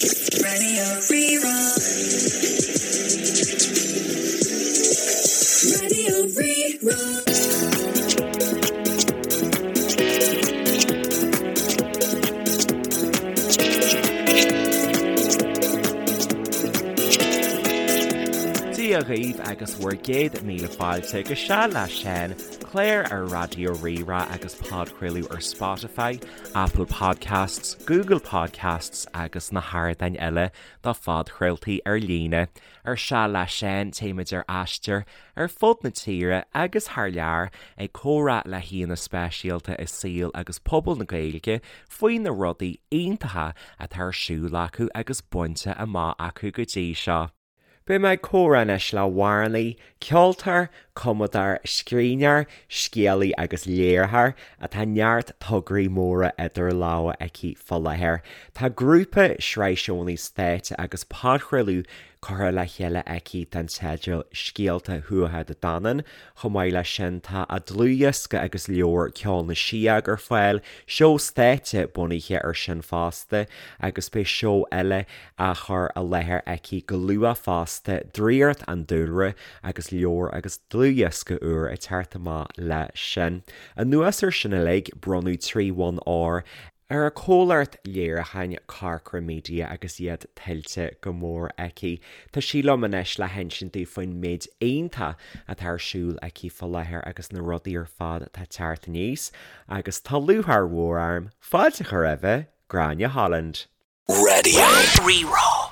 Raidió Rí-Rá. Raidió Rí-Rá. Dia dhaoibh agus bhur gcéad míle fáilte go Seal le Seán, clár ar Raidió Rí-Rá agus podchraoladh ar Spotify, Apple Podcasts, Google Podcasts agus na hardáin eile do phodchraoltaí ar líne. Ar Seal le Seán, téimid ar aistear ar fud na tíre agus thar lear ag comhrá le haíonna speisialta i saol agus pobal na Gaeilge faoi na rudaí iontacha atá ar siúl acu agus bainte amach acu go dtí seo. Beidh mé ag comhrá anois le hamhránaí, ceoltóir, cumadóir, scríbhneoir, scéalaí agus léiritheoir atá neart tograí móra idir lámha aici fá láthair. Tá grúpa, sraith seónna stáitse agus podchraoladh curtha le chéile aici den teideal Scéalta Thuatha Dé Danann. Chomh maith leis sin tá a dlúthdhiosca agus leabhar Ceol na Síóg ar fáil, seó stáitse bunaithe air sin fosta agus beidh seó eile á chur i láthair aici go luath fosta, Draíocht an Dúlra agus leabhar agus dlúthdhiosca úr ag teacht amach leis sin. Anuas air sin uilig, bronnadh 3 bhonn óir ar a comhlacht léiriúcháin Corcra Media agus iad tuillte go mór aici. Tá sí liom anois le hinsint dúinn faoin méid iontach atá ar siúl aici fá láthair agus na rudaí ar fad atá ag teacht aníos agus tá lúcháir mhór orm fáilte a chur roimhe, Gráinne Holland. Raidió Rí-Rá.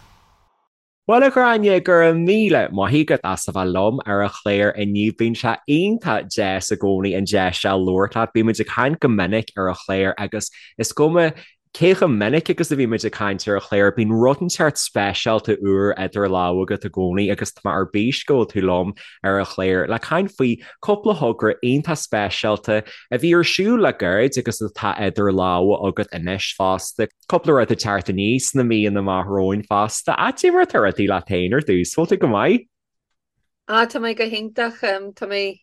Bhuel a Ghráinne, go raibh míle maith agat as a bheith liom ar an chlár inniu. Bíonn sé iontach deas i gcónaí an deis seo labhairt leat. Bímid ag caint go minic ar an chlár agus is cuma cé chomh minic agus a bhímid ag caint ar an chlár, bíonn rud inteacht speisialta úr idir lámha agat i gcónaí agus tá mé ar bís go bhfuil tú liom ar an chlár le caint faoi cúpla thogra iontach speisialta a bhí ar siúl le gairid agus atá idir lámha agat anois fosta. Cúpla rud ag teacht aníos sna míonna amach romhainn fosta. Cad é mar atá rudaí leat féin ar dtús, bhfuil tú go maith? Ah, tá mé go hiontach. Tá mé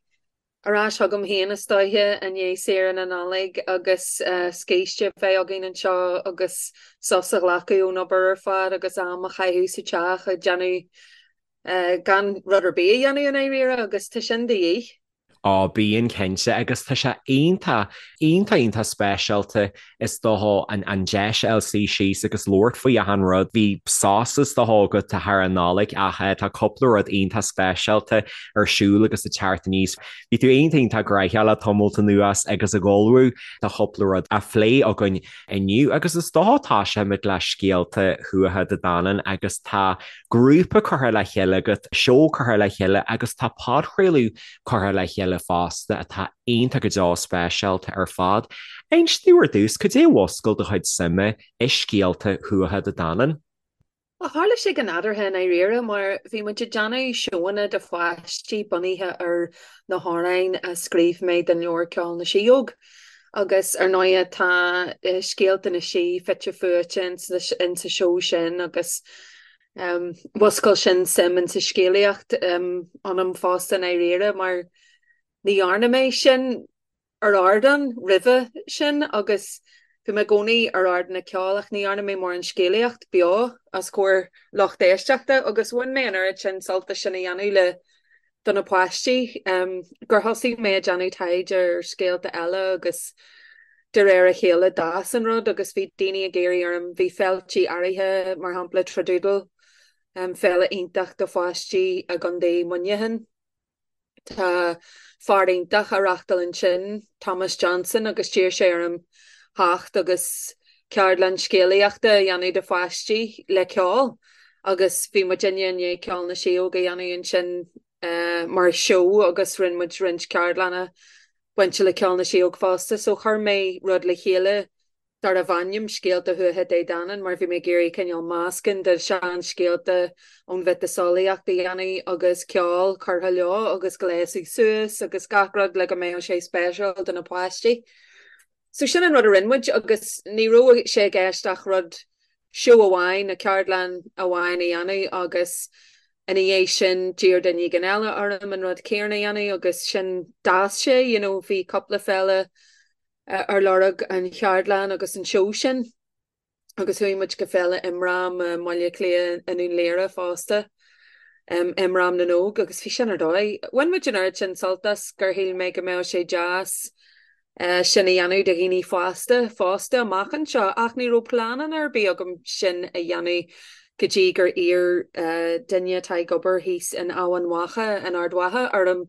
ar ais chugam féin is dóiche i ndiaidh saoire na Nollag agus scíste a bheith againn anseo agus sos a ghlacadh ón obair ar fad agus am a chaitheamh sa teach ag déanamh gan rud ar bith a dhéanamh i ndáiríre agus tá sin de dhíth. Á, bíonn cinnte, agus tá sé iontach, iontach, iontach speisialta is dócha an an deis a fháil suí síos agus labhairt faoi achan rud. Bhí sos is dócha agat thar an Nollaig ach tá cúpla rud iontach speisialta ar siúl agus ag teacht aníos. Bhí tú iontach, iontach gnaitheach le tamalt anuas agus ag ullmhú do chúpla rud a phlé againn inniu agus is dócha tosóimid le Scéalta Thuatha Dé Danann agus tá grúpa curtha le chéile agat, seó curtha le chéile agus tá podchraoladh curtha le chéile fosta atá iontach go deo speisialta ar fad. Inis domh ar dtús, cad é a mhúscail do chuid suime i scéalta Thuatha Dé Danann? Bhuel, tharla sé go nádúrtha i ndáiríre mar bhí muid ag déanamh seóanna do pháistí bunaithe ar na hamhráin a scríobh mé don leabhar Ceol na Síóg. Agus ar ndóighe tá scéalta na sí fite fuaite insa seó sin agus mhúscail sin suim insa scéalaíocht ionam fosta i ndáiríre mar ní dhearna mé sin ar ardán roimhe sin agus bhí mé i gcónaí ar ardán ag ceol ach ní dhearna mé mórán scéalaíocht beo os comhair lucht éisteachta agus bhain mé an oiread sin sult as sin a dhéanamh le do na páistí gur thosaigh mé ag déanamh taighde ar scéalta eile agus de réir a chéile d'fhás an rud agus bhí daoine ag iarraidh orm, bhí féiltí áirithe, mar shampla Tradoodle, féile iontach do pháistí i gContae Muineacháin. Tá fear iontach á reachtáil ansin, Thomas Johnson, agus d'iarr sé orm theacht agus ceardlann scéalaíochta a dhéanamh do pháistí le ceol agus bhí muidinne i ndiaidh Ceol na Síóg a dhéanamh ansin mar sheó agus rinne muid roinnt ceardlanna bainte le Ceol na Síóg fosta so chuir mé rud le chéile darbh ainm Scéalta Thuatha Dé Danann mar bhí mé ag iarraidh cineál meascán de seanscéalta ón mhiotaseolaíocht a dhéanamh agus ceol curtha leo agus gléasadh suas agus gach rud le go mbeadh sé speisialta do na páistí. So sin an rud a rinne muid agus ní raibh sé i gceist ach rud, seó amháin nó ceardlann amháin a dhéanamh agus ina dhiaidh sin d'iarr duine éigin eile orm an rud céanna a dhéanamh agus sin d'fhás sé, you know, bhí cúpla féile ar lorg an cheardlann agus an seó sin. Agus chuaigh muid go Féile Imram i mBaile Átha Cliath i nDún Laoghaire fosta, Imram na nÓg, agus bhí sin ar dóigh. Bhain muid an oiread sin sult as gur shíl mé go mbeadh sé deas sin a dhéanamh do dhaoine fásta fosta amach anseo, ach ní raibh pleananna ar bith agam sin a dhéanamh go dtí gur iarr duine atá ag obair thíos in Eamhain Mhacha in Ard Mhacha orm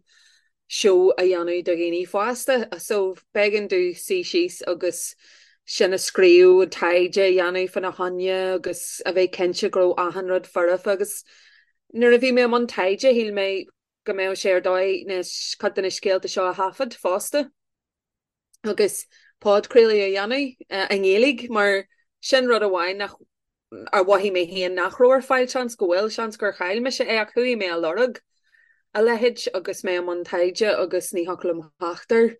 seó a dhéanamh do dhaoine fásta. So b'éigean domh suí síos agus sin a scríobh, an taighde a dhéanamh fána choinne agus a bheith cinnte go raibh achan rud foirfe agus nuair a bhí mé i mbun taighde shíl mé go mbeadh sé ar dóigh na cuid de na scéalta seo a thaifead fosta agus podchraoladh a dhéanamh i nGaeilge mar sin rud amháin nach ar mhothaigh mé féin nach raibh ar fáil, seans go bhfuil, seans gur chaill mise é ach chuaigh mé a lorg a leithéid agus mé i mbun taighde agus ní thiocfadh liom theacht air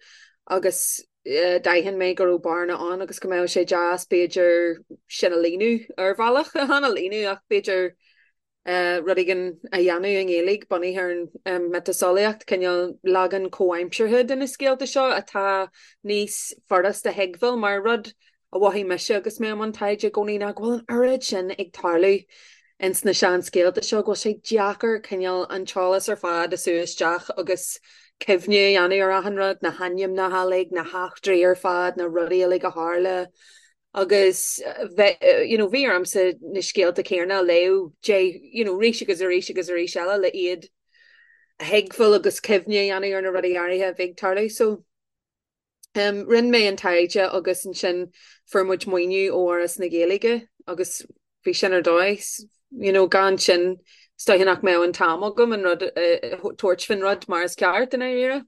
agus d'aithin mé go raibh bearna ann agus go mbeadh sé deas b'fhéidir sin a líonadh ar bhealach, chan a líonadh ach b'fhéidir rud éigin a dhéanamh i nGaeilge bunaithe ar an miotaseolaíocht, cineál leagan comhaimseartha de na scéalta seo atá níos furasta a thuigbheáil mar rud a mhothaigh mise agus mé i mbun taighde i gcónaí ná go bhfuil an oiread sin ag tarlú ins na seanscéalta seo go bhfuil sé deacair cineál an t-eolas ar fad a sú isteach agus cuimhne a dhéanamh ar achan rud, na hainmneacha uilig, na heachtraí ar fad, na rudaí uilig a tharla agus you know bhí ormsa na scéalta céanna a léamh de you know arís agus arís agus arís eile le iad a thuigbheáil agus cuimhne a dhéanamh ar na rudaí áirithe a bhí ag tarlú. So rinne mé an taighde agus ansin fuair muid maoiniú ó Fhoras na Gaeilge agus bhí sin ar dóigh you know gan sin is dóiche nach mbeadh an t-am agam an rud tabhairt faoin rud mar is ceart i ndáiríre.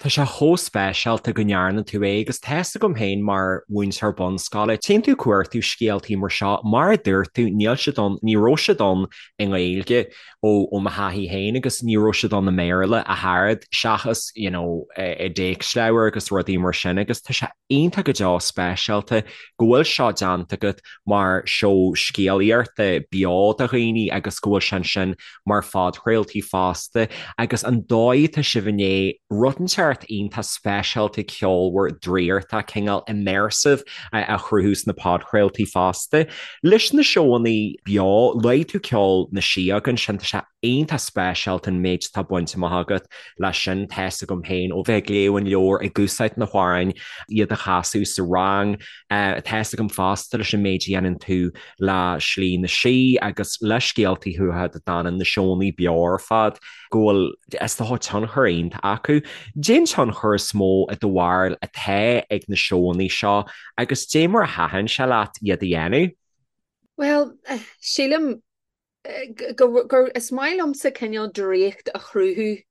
Tá sé chomh speisialta go ndearna tú é agus tá fhios agam féin mar mhúinteoir bunscoile, téann tú ag cuartú scéaltaí mar seo, mar a dúirt tú, níl siad ann, ní raibh siad ann i nGaeilge ó ó mo thaithí féin agus ní raibh siad ann i mBéarla ach oiread seachas you know i dtéacsleabhair agus rudaí mar sin agus tá sé iontach go deo speisialta go bhfuil seo déanta agat mar seó scéalaíochta beo do dhaoine agus go bhfuil sé ansin mar phodchraoltaí fosta agus an dóigh atá sibh i ndiaidh rud inteacht iontach speisialta ceolmhar draíochtach cineál immersive a chruthú sna podchraoltaí fosta. Leis na seóanna beo, luaigh tú Ceol na Síóg ansin, tá sé iontach speisialta an méid atá bainte amach agat leis sin, tá fhios agam féin ó bheith ag léamh an leabhair, ag úsáid na hamhráin, iad a chasadh sa rang, tá fhios agam fosta leis an méid a dhéanann tú le Slí na Sí agus le Scéaltaí Thuatha Dé Danann, na seónna beo ar fad, go bhfuil, is dócha, tionchar iontach acu. Cén tionchar is mó i do bharúil atá ag na seónna seo agus dé mar a thaitin sé leat iad a dhéanamh? Bhuel, sílim go, gur, is maith liomsa cineál draíocht a chruthú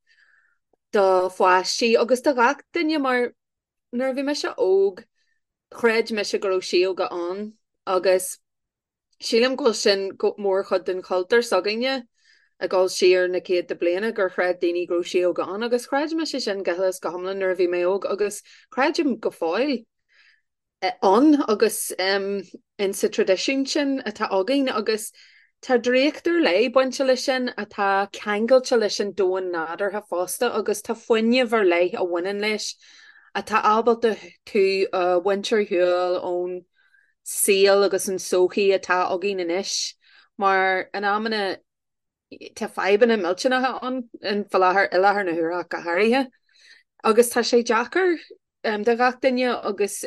do pháistí agus do ghach duine mar nuair a bhí mise óg chreid mise go raibh síóga ann agus sílim go bhfuil sin mórchuid den chultúr s'againne ag dul siar na céadta bliana gur chreid daoine go raibh síóga ann agus chreid mise sin go huile is go hiomlán nuair a bhí mé óg agus creidim go fóill. ann agus in sa traidisiún sin atá againn agus tá draíocht ar leith bainte leis sin atá ceangailte leis an domhan nádúrtha fosta agus tá fuinneamh ar leith a bhaineann leis atá ábalta tú a bhaint ar shiúl ón saol agus an sochaí atá againn anois mar in amanna tá fadhbanna millteanacha ann faoi láthair, i láthair na huaire ach go háirithe agus tá sé deacair do ghach duine agus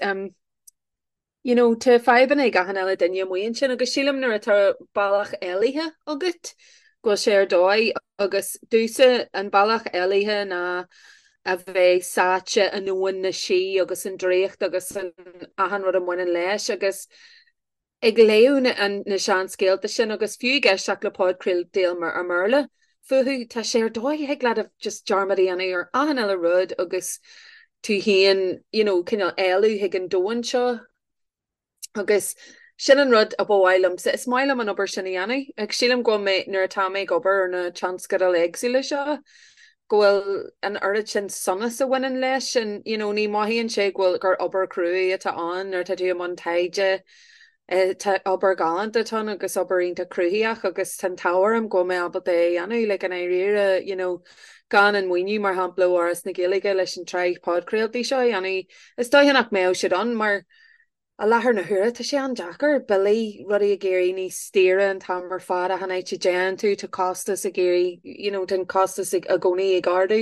you know tá fadhbanna ag achan uile duine amuigh ansin agus sílim nuair atá bealach éalaithe agat go bhfuil sé ar dóigh agus domhsa an bealach éalaithe ná a bheith sáite i ndomhan na sí agus an draíocht agus an achan rud a mbaineann leis agus ag léamh na seanscéalta sin agus fiú ag éisteacht le podchraoltaí i mBéarla fúthu, tá sé ar dóigh, thig leat just dearmad a dhéanamh ar achan uile rud agus tú féin, you know, cineál éalú chuig an domhan seo. Agus sin an rud a ba mhaith liomsa. Is maith liom an obair sin a dhéanamh. Agus sílim go bhfuil mé, nuair atá mé ag obair ar na tionscadail éagsúla seo, go bhfuil an oiread sin sonas a bhaineann leis and you know ní mothaíonn sé go bhfuil gur obair cruaidh atá ann nuair atá tú i mbun taighde tá obair ghalánta atá ann agus obair iontach cruthaitheach agus tá an t-ádh orm go bhfuil mé ábalta é a dhéanamh like i ndáiríre you know gan an maoiniú mar shampla ó Fhoras na Gaeilge leis an tsraith podchraoltaí seo a dhéanamh is dóiche nach mbeadh siad ann mar. I láthair na huaire tá sé an-deacair, billí, rudaí ag éirí níos daoire an t-am ar fad, achan áit a dtéann tú tá costas ag éirí, you know, tá an costas i gcónaí ag ardú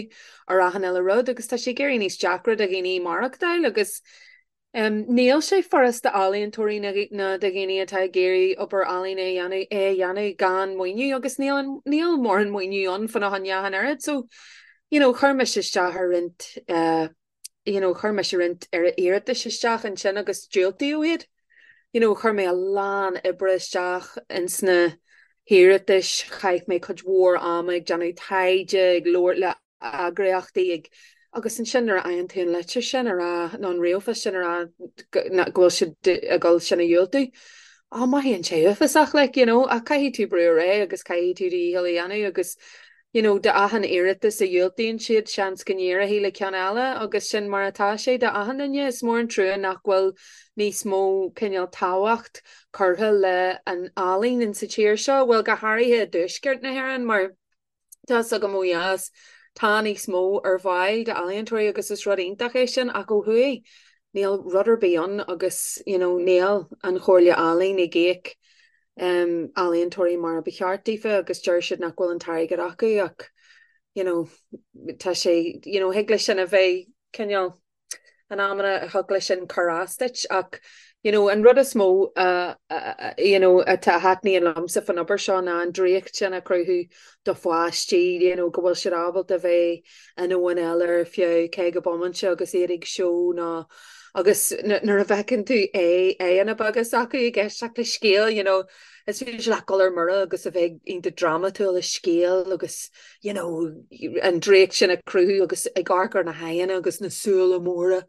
ar achan uile rud agus tá sé ag éirí níos deacra do dhaoine maireachtáil agus em níl sé furasta d'ealaíontóirí ná do dhaoine atá ag iarraidh obair ealaíne a dhéanamh é a dhéanamh gan maoiniú agus níl an níl mórán maoiniú ann fána choinne ach an oiread so you know chuir mise isteach ar roinnt eh you know, chuir mise roinnt iarratais isteach ansin agus diúltaíodh iad. You know, chuir mé a lán oibre isteach ins na hiarratais, chaith mé cuid mhór ama ag déanamh taighde, ag labhairt le eagraíochtaí, ag, agus ansin nuair a fhaigheann tú an litir sin a rá, nó an ríomhphost sin a rá go bhfuil siad ag dul sin a dhiúltú, á, mothaíonn sé uafásach, like, you know, ach caithfidh tú brú ar aghaidh agus caithfidh tú do dhícheall a dhéanamh agus you know, d'achan iarratas a dhiúltaíonn siad, seans go n-éireoidh le ceann eile agus sin mar atá sé d'achan duine. Is mór an trua nach bhfuil níos mó cineál tábhacht curtha le an ealaín in sa tír seo, bhuel go háirithe i dtuaisceart na hÉireann mar tá 's agam ó dheas tá níos mó ar fáil d'ealaíontóirí agus is rud iontach é sin ach ó thuaidh níl rud ar bith ann agus you know níl an Chomhairle Ealaíon ag íoc ealaíontóirí mar a ba cheart daofa agus deir siad nach bhfuil an t-airgead acu ach you know tá sé you know thig leis sin a bheith cineál in amanna thig leis sin cur as duit ach you know an rud is mó uh, you know atá a thaitníonn liomsa fan obair seo ná an draíocht sin a chruthú do pháistí you know go bhfuil siad ábalta bheith i ndomhan eile ar feadh 50 bomainte agus iad ag seó nó Agus nuair a fheiceann tú aghaidheanna beaga s'acu ag éisteacht le scéal, you know, is féidir leat dul ar mire agus a bheith iontach drámatúil i scéal agus, you know, an draíocht sin a chruthú agus ag amharc ar na haghaidheanna agus na súile móra,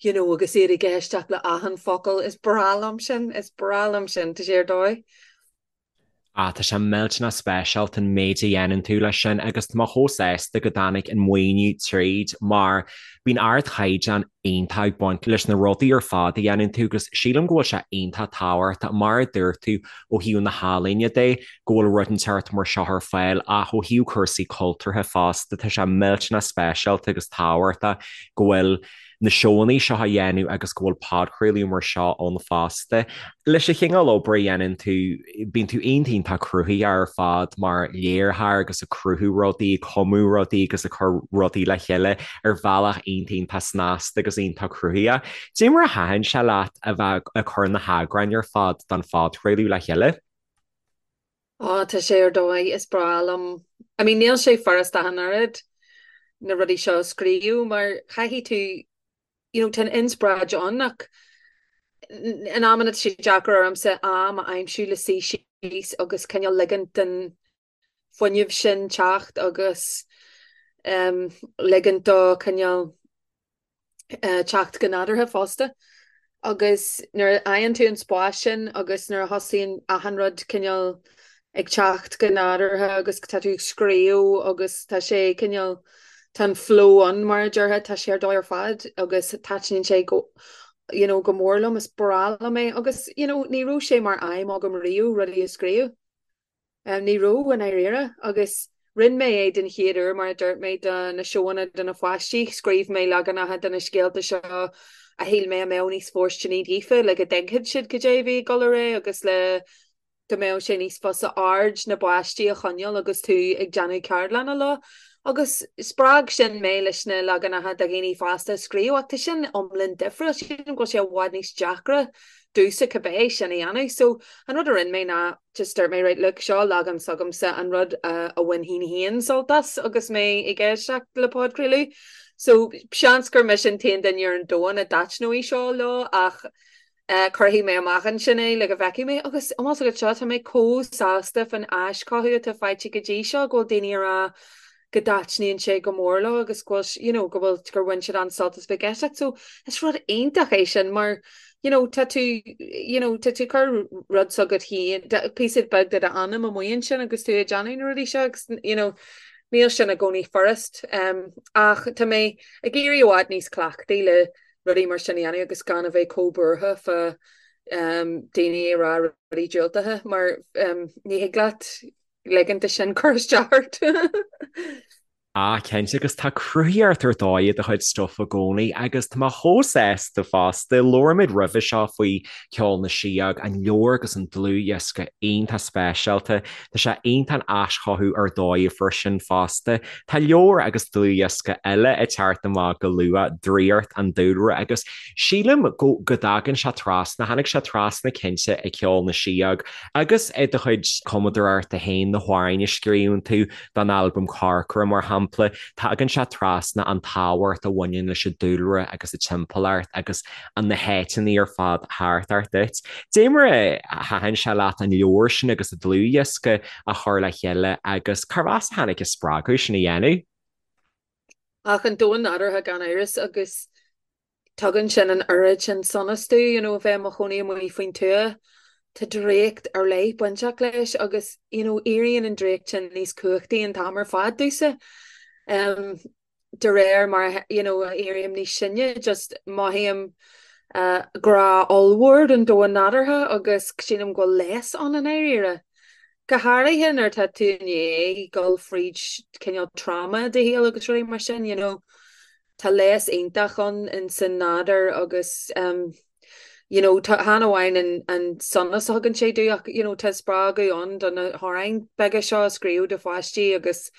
you know, agus iad ag éisteacht le achan focal. Is breá liom sin, is breá liom sin, tá sé ar dóigh. Ah, tá sé millteanach speisialta an méid a dhéanann tú leis sin agus tá mé chomh sásta go dtáinig an maoiniú tríd mar bíonn ardchaighdeán iontach ag baint leis na rudaí ar fad a dhéanann tú agus sílim go bhfuil sé iontach tábhachtach, mar a dúirt tú, ó thaobh na healaíne de, go bhfuil rud inteacht mar seo ar fáil ach ó thaobh cúrsaí cultúrtha fosta, tá sé millteanach speisialta agus tábhachtach go bhfuil na seónna seo a dhéanamh agus go bhfuil podchraoladh mar seo ann fosta. Leis an chineál obair a dhéanann tú, bíonn tú iontach iontach cruthaitheach ar fad mar léiritheoir agus ag cruthú rudaí, ag cumadh rudaí agus ag cur rudaí le chéile ar bhealach iontach iontach snasta agus iontach cruthaitheach. Cad é mar a thaitin sé leat a bheith ag cur na heagráin ar fad don phodchraoladh le chéile? Á, tá sé ar dóigh, is breá liom. I mean, níl sé furasta ach an oiread na rudaí seo a scríobh mar caithfidh tú, you know, tá an inspioráid ann ach in amanna tá sé deacair ormsa am a aimsiú le suí síos agus cineál ligint don fuinneamh sin teacht agus um, ligint dó cineál teacht go nádúrtha fosta. Agus nuair a fhaigheann tú an spás sin agus nuair a thosaíonn achan rud cineál ag teacht go nádúrtha agus tá tú ag scríobh agus tá sé cineál, tá an flow ann mar a déarfá, tá sé ar dóigh ar fad agus taitníonn sé go you know go mór liom, is breá liom é agus you know ní raibh sé mar aidhm agam riamh rudaí a scríobh. Ní raibh, i ndáiríre, agus rinne mé é den chéad uair, mar a dúirt mé, do na seóanna do na pháistí. Scríobh mé leaganacha de na scéalta seo a shíl mé a mbeadh níos fóirsteanaí daofa, le go dtuigfeadh siad cad é a bhí ag dul ar aghaidh agus le go mbeadh sé níos fusa aird na bpáistí a choinneáil agus tú ag déanamh ceardlanna leo. Agus spreag sin mé leis na leaganacha do dhaoine fásta a scríobh, ach tá sin iomlán difriúil, sílim go bhfuil sé i bhfad níos deacra domhsa cibé sin a dhéanamh. So, an rud a rinne mé ná just dúirt mé right look seo leagan s'agamsa an rud a bhainfinn féin sult as agus mé ag éisteacht le podchraoladh. So seans gur mise an t-aon duine ar an domhan a dtaitneoidh seo leo ach eh, cuirfidh mé amach ansin é le go bhfeicfidh mé agus an bhfuil a fhios agat seo tá mé chomh sásta fan aischothú atá faighte go dtí seo go bhfuil daoine ag rá go dtaitníonn sé go mór leo agus go bhfuil you know go bhfuil gur bhain siad an-sult as bheith ag éisteacht. So is rud iontach é sin mar you know tá tú you know tá tú ag cur rud s'agat féin píosa beag de d'anam amuigh ansin agus tú ag déanamh na rudaí seo agus you know níl sin i gcónaí furast um, ach tá mé ag éirí i bhfad níos cleachtaí le rudaí mar sin a dhéanamh agus gan a bheith chomh buartha fá um, daoine ag rá rudaí diúltacha mar um, ní thig leat ligint de sin cur isteach ort. Ah, cinnte, agus tá cruthaíocht ar dóigh i do chuid stuif i gcónaí agus tá mé chomh sásta fosta. Labhair muid roimhe seo faoi Ceol na Síóg, an leabhar agus an dlúthdhiosca iontach speisialta. Tá sé iontach an aischothú ar dóigh a fuair sin fosta. Tá leabhar agus dlúthdhiosca eile ag teacht amach go luath, Draíocht an Dúlra, agus sílim go go dtagann sé trasna, tháinig sé trasna cinnte i Ceol na Síóg agus i do chuid cumadóireachta féin, na hamhráin a scríobhann tú, don albam Corcra, mar shampla, tagann sé trasna an tábhacht a bhaineann leis an dúlra agus an timpeallacht agus na háiteanna ar fad thart ort duit. Dé mar a thaitin sé leat an leabhar sin agus an dlúthdhiosca a chur le chéile agus cárb as a tháinig an spreagadh sin a dhéanamh? Ach an domhan nádúrtha gan amhras agus Tugann sin an oiread sin sonas domh, you know, a bheith i mo chónaí amuigh faoin tuath. Tá draíocht ar leith bainteach leis agus, you know, éiríonn an draíocht sin níos cumhachtaí an t-am ar fad domhsa. Um, de réir mar, you know, a éirím níos sine, just mothaím uh, grá ollmhór don domhan nádúrtha agus sílim go bhfuil leigheas ann i ndáiríre. Go háirithe nuair atá tú i ndiaidh dul fríd cineál trauma i do shaol agus rudaí mar sin, you know. Tá leigheas iontach ann in san nádúr agus you know tá chan amháin an an sonas a thugann sé domh ach you know tá spreagadh ann do na hamhráin beaga seo a scríobh do pháistí agus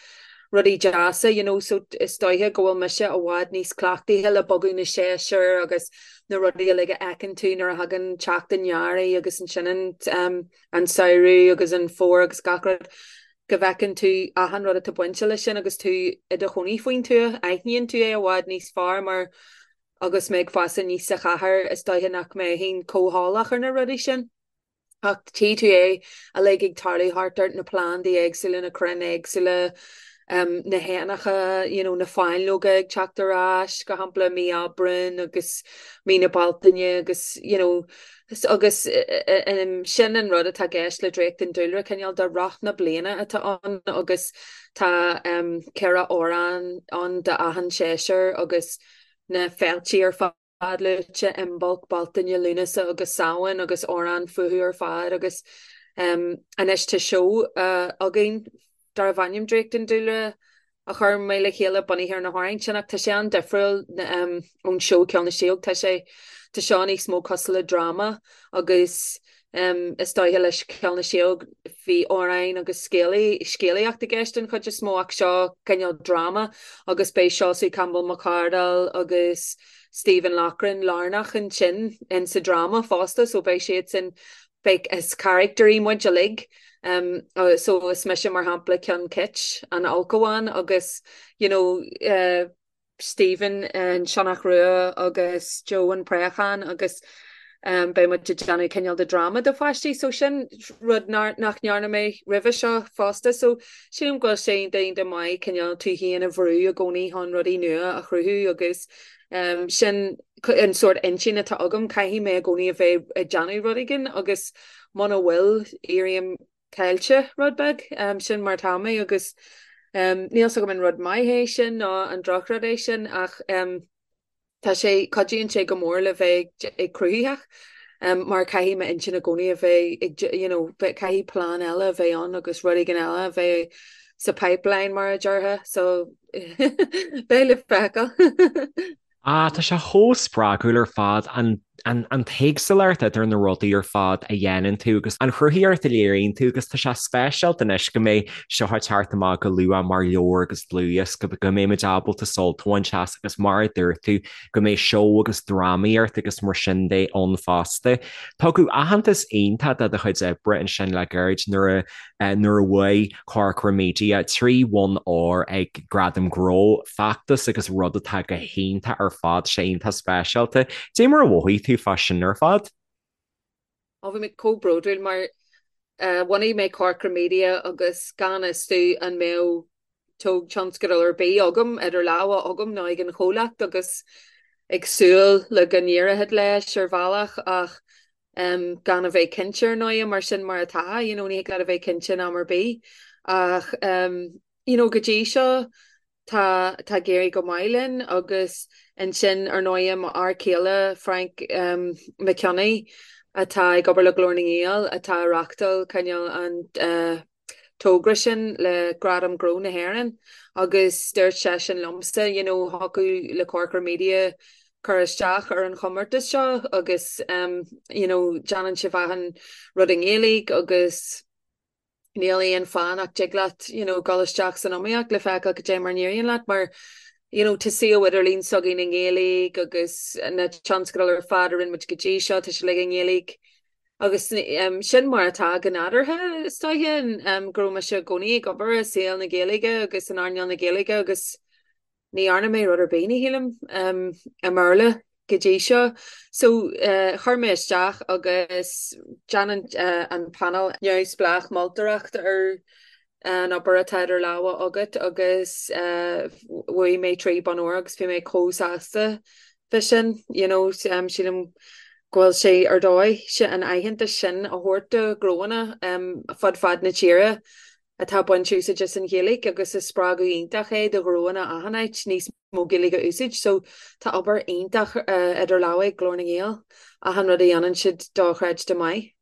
rudaí deasa you know so is dóiche go bhfuil mise i bhfad níos cleachtaithe le bogadh na séasúr agus na rudaí uilig a fheiceann tú nuair a thagann teacht an earraigh agus ansin an um, an samhradh agus an fómhar agus gach rud. go bhfeiceann tú achan rud atá bainte leis sin agus tú i do chónaí faoin tuath, aithníonn tú é i bhfad níos fearr mar agus mé ag fás aníos sa chathair is dóiche nach mbeinn chomh heolach ar na rudaí sin. Ach tchí tú é uilig ag tarlú thart ort, na plandaí éagsúla, na crainn éagsúla, na héanacha, you know, na fáinleoga ag teacht ar ais, go shampla mí Aibreáin agus mí na Bealtaine agus, you know, Agus sin an rud atá i gceist le Draíocht an Dúlra, cineál de roth na bliana atá ann agus tá 4 amhrán ann d'achan séasúr agus na féiltí ar fad luaite, Imbolc, Bealtaine, Lúnasa agus Samhain agus amhráin fúthu ar fad agus anois tá seó againn darbh ainm Draíocht an Dúlra a chuir mé le chéile bunaithe ar na hamhráin sin ach tá sé an-difriúil ón seó Ceol na Síóg. Tá sé, tá seo níos mó cosúil le dráma agus is dóiche leis Ceol na Síóg bhí amhráin agus scéalaíocht i gceist den chuid is mó ach seo cineál dráma agus beidh Seosamh Campbell Mac Cárthaigh agus Stephen Loughran lárnach ansin in sa dráma fosta so beidh siad sin Beidh, is caractairí muid uilig. So is mise mar shampla Ceann Cit, an ulchabhán agus you know Stephen an Sionnach Rua agus Joe an Préachán agus beidh muid ag déanamh cineál de dráma do pháistí so sin rud nach ndearna mé roimhe seo fosta so sílim go bhfuil sé iontach maith cineál tú féin a bhrú i gcónaí chun rudaí nua a chruthú agus Sin an sórt intinn atá agam, caithfidh mé i gcónaí a bheith ag déanamh rud éigin agus muna bhfuil, éirím caillte rud beag. Sin mar atá mé agus níl 's agam an rud maith é sin nó an drochrud é sin ach tá sé, cuidíonn sé go mór le bheith ag cruthaitheach mar caithfidh m'intinn i gcónaí a bheith ag, you know, caithfidh plean eile a bheith ann agus rud éigin eile a bheith sa pipeline mar a déarfá so Beidh le feiceáil. Ah, tá sé chomh spreagúil ar fad, an, an, an t-éagsúlacht idir na rudaí ar fad a dhéanann tú agus an chruthaíocht a léiríonn tú agus tá sé speisialta anois go mbeidh seo ag teacht amach go luath mar leabhar agus dlúthdhiosca, go mbeidh muid ábalta sult a bhaint as agus mar a dúirt tú, go mbeidh seó agus drámaíocht agus mar sin de ann fosta. Tugadh aitheantas iontach do do chuid oibre ansin le gairid nuair a nuair a bhuaigh Corcra Media 3 bhonn óir ag Gradaim Gnó, feachtas agus rud atá go hiontach ar fad, sé iontach speisialta. Dé mar a mhothaigh tú fá sin ar fad? Ó bhí mé chomh bródúil mar bhunaigh mé Corcra Media agus gan fhios domh an mbeadh tionscadal ar bith agam, idir lámha agam nó ag an chomhlacht agus ag súil le go n-éireoidh leis ar bhealach ach gan a bheith cinnte ar ndóigh mar sin mar atá, you know, ní thig leat a bheith cinnte in am ar bith ach you know, go dtí seo tá tá ag éirí go maith linn agus ansin ar ndóigh mo fhear céile Frank Mac Cionnaith atá ag obair le Glór na nGael atá ag reáchtáil cineál an uh, togra sin le Gradam Gnó na hÉireann agus dúirt seisean liomsa, you know, thiocfadh le Corcra Media cur isteach ar an chomórtas seo agus you know, déanann sibh achan rud i nGaeilge agus níl aon fáth nach dtig leat you know, dul isteach san iomaíocht le feiceáil cad é mar a n-éiríonn leat mar you know, tá suíomh idirlín s'againn i nGaeilge agus na tionscadail ar fad a rinne muid go dtí seo, tá sé uilig i nGaeilge. Agus sin mar atá go nádúrtha, is dóiche, go raibh mise i gcónaí ag obair i saol na Gaeilge agus in earnáil na Gaeilge agus ní dhearna mé rud ar bith, ní shílim, i mBéarla go dtí seo. So, chuir mé isteach agus déanann an panel neamhspleách moltóireacht ar an obair atá idir lámha agat agus bhuaigh mé 3 bonn óir agus bhí mé chomh sásta fá sin, you know, sílim go bhfuil sé ar dóigh an aitheantas sin a thabhairt do ghnóanna fud fad na tíre atá ag baint úsáid as an Ghaeilge agus is spreagadh iontach é do ghnóanna achan áit níos mó Gaeilge a úsáid. So tá obair iontach idir lámha ag Glór na nGael, achan rud a dhéanann siad dochreidte maith.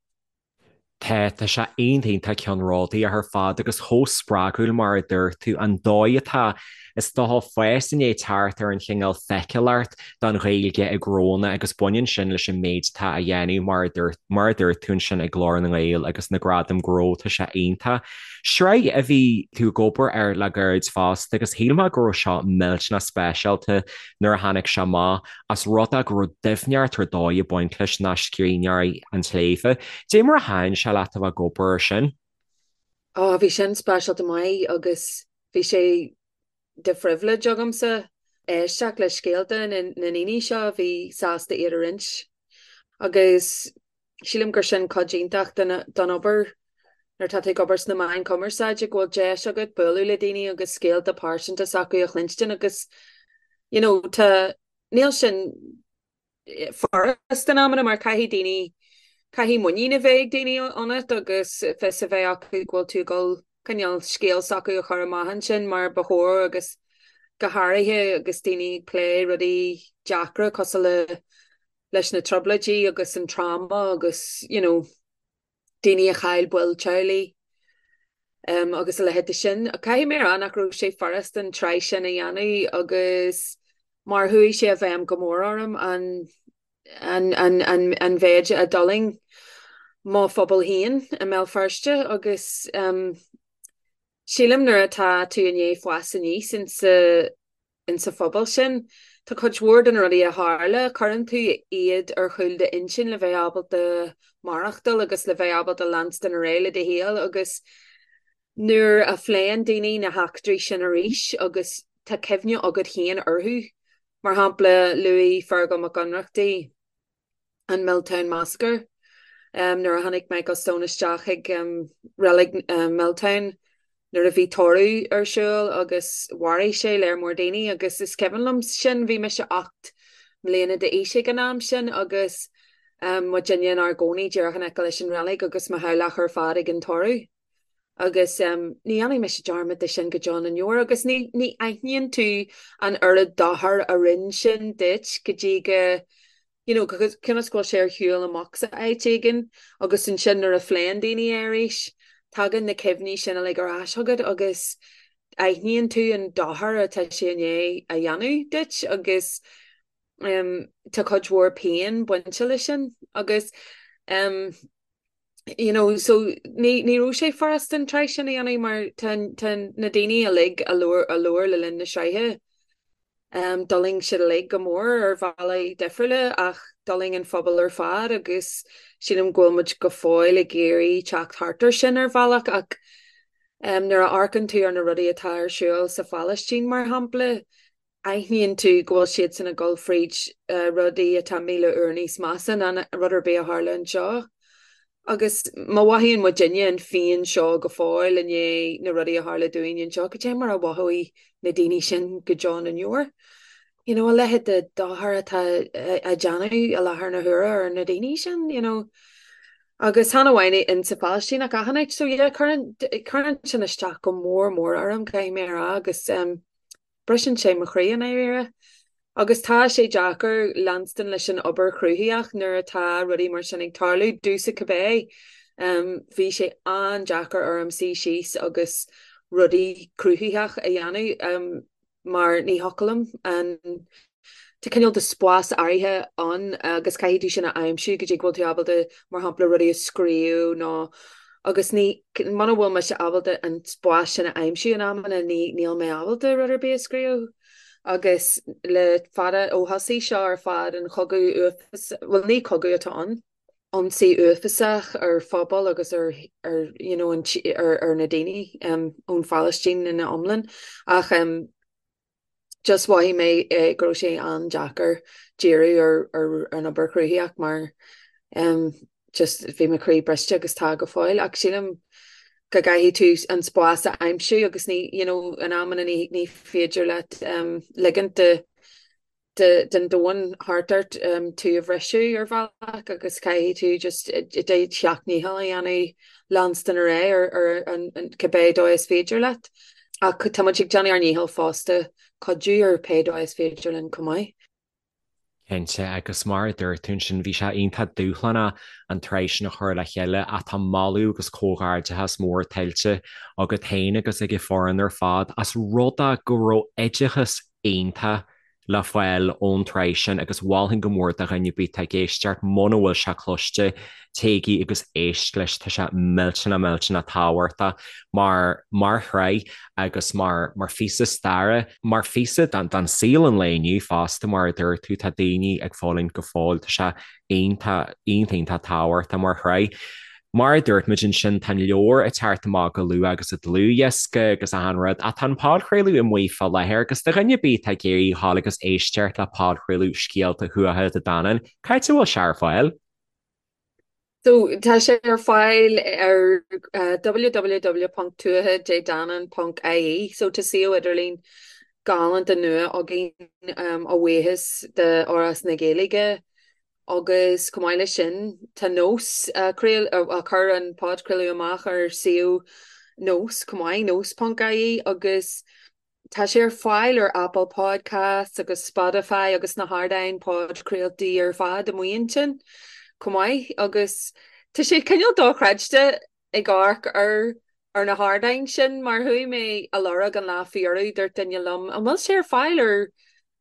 Tá, tá sé iontach iontach ceannródaíoch ar fad agus chomh spreagúil mar a dúirt tú, an dóigh atá, is dócha, fás i ndiaidh teacht ar an chineál feiceálacht don Ghaeilge i ngnónna agus baineann sin leis an méid atá á dhéanamh mar a dúirt, mar a dúirt tú ansin ag Glór na nGael agus na Gradaim Gnó, tá sé iontach. Sraith a bhí tú ag obair air le gairid fosta agus shíl mé go raibh seo millteanach speisialta nuair a tháinig sé amach. Ós rud é go raibh doimhneacht ar dóigh ag baint leis ná Scríbhneoirí an tSléibhe. Dé mar a thaitin sé leat a bheith ag obair air sin? Ó, bhí sin speisialta maith agus bhí sé de phribhléid agamsa éisteacht le scéalta na ndaoine seo a bhí sásta iad a roinnt. Agus sílim gur sin cuid iontach den obair nuair atá tú ag obair sna meáin chumarsáide, go bhfuil deis agat bualadh le daoine agus scéalta pearsanta s'acu a chluinstin agus you know tá, níl sin furast in amanna mar caithfidh daoine, caithfidh muinín a bheith ag daoine ionat agus fios a bheith acu go bhfuil tú ag dul cineál scéal s'acu a chur amach ansin mar ba chóir agus go háirithe agus daoine ag plé rudaí deacra cosúil le leis na trioblóidí agus an trauma agus you know daoine a chaill baill teaghlaigh agus a leithéid de sin. Caithfidh mé a rá nach raibh sé furast an tsraith sin a dhéanamh agus mar chuaigh sé i bhfeidhm go mór orm an an an an an mhéid a d'fhulaing mo phobal féin i mBéal Feirste agus sílim nuair atá tú i ndiaidh fás aníos insa insa phobal sin. Tá cuid mhór de na rudaí a tharla, cuireann tú iad ar chúl d'intinn le bheith ábalta maireachtáil agus le bheith ábalta leanstan ar aghaidh le do shaol agus nuair a phléann daoine na heachtraí sin arís agus tá cuimhne agat féin orthu, mar shampla luaigh Feargal Mac Ionnrachtaigh, an Milltown Massacre nuair a tháinig Michael Stone isteach chuig reilig Milltown nuair a bhí tórramh ar siúl agus mharaigh sé léar mór daoine agus is cuimhin liom sin, bhí mise 8 mbliana d'aois ag an am sin agus muidinne inár gcónaí díreach in aice leis an reilig agus mo theaghlach ar fad ag an tórramh. Agus ní dhéanfaidh mise dearmad de sin go deo na ndeor agus ní ní aithníonn tú an oiread dochair a rinne sin duit go dtí go you know cionn is go bhfuil sé ar shiúl amach sa áit éigin agus ansin nuair a phléann daoine é arís tagann na cuimhní sin uilig ar ais chugat agus aithníonn tú an dochar atá sé i ndiaidh a dhéanamh duit agus tá cuid mhór pian bainte leis sin agus you know, so ní, ní raibh sé furast an tsraith sin a dhéanamh mar tá, tá na daoine uilig a labhair, a labhair le linn na sraithe, um, d'fhulaing siad uilig go mór ar bhealaí difriúla ach d'fhulaing an phobal ar fad agus sílim go bhfuil muid go fóill ag iarraidh teacht thart ar sin ar bhealach ach um, nuair a amharcann tú ar na rudaí atá ar siúl sa Phalaistín mar shampla, aithníonn tú go bhfuil siadsan ag dul fríd rudaí atá 1,000 uair níos measa ná rud ar bith a tharla anseo. Agus má mhothaíonn muidinne an phian seo go fóill i ndiaidh na rudaí a tharla dúinn anseo, cad é mar a mhothóidh na daoine sin go deo na ndeor? You know, a leithéid de dochar atá á déanamh i láthair na huaire ar na daoine sin, you know. Agus chan amháin in sa Phalaistín ach achan áit. So yeah, cuireann, cuireann sin isteach go mór mór orm, caithfidh mé a rá, agus um, Briseann sé mo chroí i ndáiríre. Agus tá sé deacair leanstan leis an obair chruthaitheach nuair atá rudaí mar sin ag tarlú, domhsa cibé. Bhí sé an-deacair orm suí síos agus rudaí cruthaitheach a dhéanamh mar ní thiocfadh liom an Tá cineál de spás áirithe ann agus caithfidh tú sin a aimsiú go dtí go bhfuil tú ábalta, mar shampla, rudaí a scríobh nó agus ní, muna bhfuil mise ábalta an spás sin a aimsiú in amanna, ní, níl mé ábalta rud ar bith a scríobh. Agus le fada, ó thosaigh seo ar fad, an chogadh uafásach, bhuel ní cogadh atá ann, ionsaí uafásach ar phobal agus ar, ar, you know, an, ar, ar na daoine ón Phalaistín ina iomlán ach just mhothaigh mé go raibh sé an-deacair díriú ar an obair chruthaitheach mar just bhí mo chroí briste agus tá go fóill ach sílim go gcaithfidh tú an spás a aimsiú agus ní you know in amanna ní ní féidir leat ligint de den domhan thart ort tú a bhriseadh ar bhealach agus caithfidh tú just do sheacht ndícheall a dhéanamh leanstan ar aghaidh ar an cibé dóigh is féidir leat. Ach tá muid ag déanamh ár ndícheall fosta cuidiú ar pé dóigh is féidir linn chomh maith. Cinnte, agus mar a dúirt tú ansin, bhí sé iontach dúshlánach an tsraith sin a chur le chéile ach tá moladh agus comhghairdeachas mór tuillte agat féin agus ag an foireann ar fad as rud é go raibh oideachas iontach le fáil ón tsraith sin agus mholfainn go mór do dhuine ar bith atá ag éisteacht, muna bhfuil sé cloiste, téigí agus éist leis, tá sé millteanach millteanach tábhachtach mar mar shraith agus mar mar phíosa staire, mar phíosa den den saol an lae inniu fosta, mar a dúirt tú, tá daoine ag fulaingt go fóill, tá sé iontach, iontach, iontach tábhachtach mar shraith. Mar a dúirt muid ansin, tá an leabhar ag teacht amach go luath agus an dlúthdhiosca agus achan rud, ach tá an podchraoladh amuigh fá láthair agus do dhuine ar bith atá ag iarraidh a ghabháil agus éisteacht le podchraoladh Scéalta Thuatha Dé Danann, cá háit a bhfuil sé ar fáil? So, tá sé ar fáil ar www.tuathadédanann.ie. So, tá suíomh idirlín galánta nua againn a bhuíochas d'Fhoras na Gaeilge. Agus chomh maith leis sin, tá Nós ag cur an podchraoladh amach ar suíomh Nós chomh maith, nós.ie, agus tá sé ar fáil ar Apple Podcasts agus Spotify agus na hardáin podchraoltaí ar fad amuigh ansin chomh maith. Agus tá sé cineál dochreidte ag amharc ar ar na hardáin sin mar chuaigh mé a lorg an lá faoi dheireadh, dúirt duine liom an bhfuil sé ar fáil ar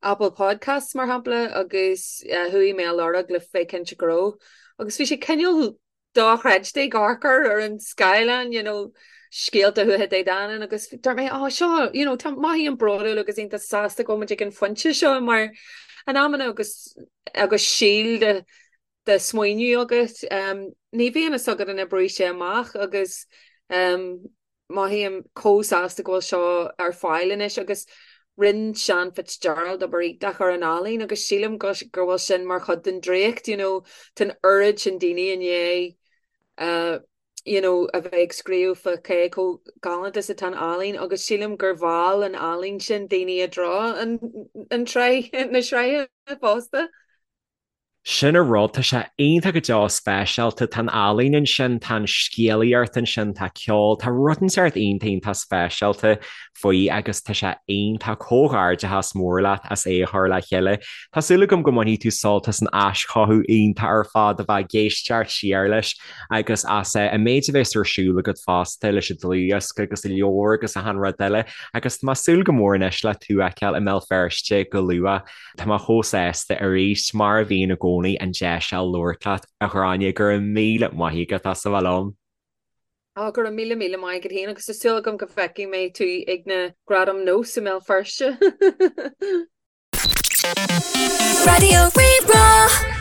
Apple Podcasts mar shampla agus chuaigh mé a lorg le bheith cinnte go raibh agus bhí sé cineál dochreidte ag amharc air ar an scáileán you know scéalta Thuatha Dé Danann agus dúirt mé oh seo you know tá mothaím bródúil agus iontach sásta go bhfuil muid ag an phointe seo mar in amanna agus agus síol de de smaoineamh agat. Ní bhíonn fhios agat an oibreoidh sé amach agus mothaím chomh sásta go bhfuil seo ar fáil anois agus rinne Seán Fitzgerald obair iontach ar an ealaín agus sílim go go bhfuil sin mar chuid den draíocht, you know, tá an oiread sin daoine i ndiaidh you know, a bheith ag scríobh fá cé chomh galánta is atá an ealaín agus sílim gur mheall an ealaín sin daoine i dtreo an an tsraith na sraithe fosta. Sin an rud, tá sé iontach go deo speisialta, tá an ealaín ansin, tá an scéalaíocht ansin, tá ceol, tá rud inteacht iontach iontach speisialta faoi agus tá sé iontach, comhghairdeachas mór leat as é a chur le chéile. Tá súil agam go mbainfidh tú sult as an aischothú iontach ar fad a bheith ag éisteacht siar leis agus as an méid a bheas ar siúl agat fosta leis an dlúthdhiosca agus an leabhar agus achan rud eile agus tá mé ag súil go mór anois le tú a fheiceáil i mBéal Feirste go luath. Tá mé chomh sásta arís, mar a bhíonn i gcónaí, an deis a labhairt leat, a Ghráinne. Go raibh míle maith agat as a bheith liom. Ó, go raibh míle míle maith agat féin agus tá súil agam go bhfeicfidh mé tú ag na Gradaim Nós i mBéal Feirste. Raidió Rí-Rá.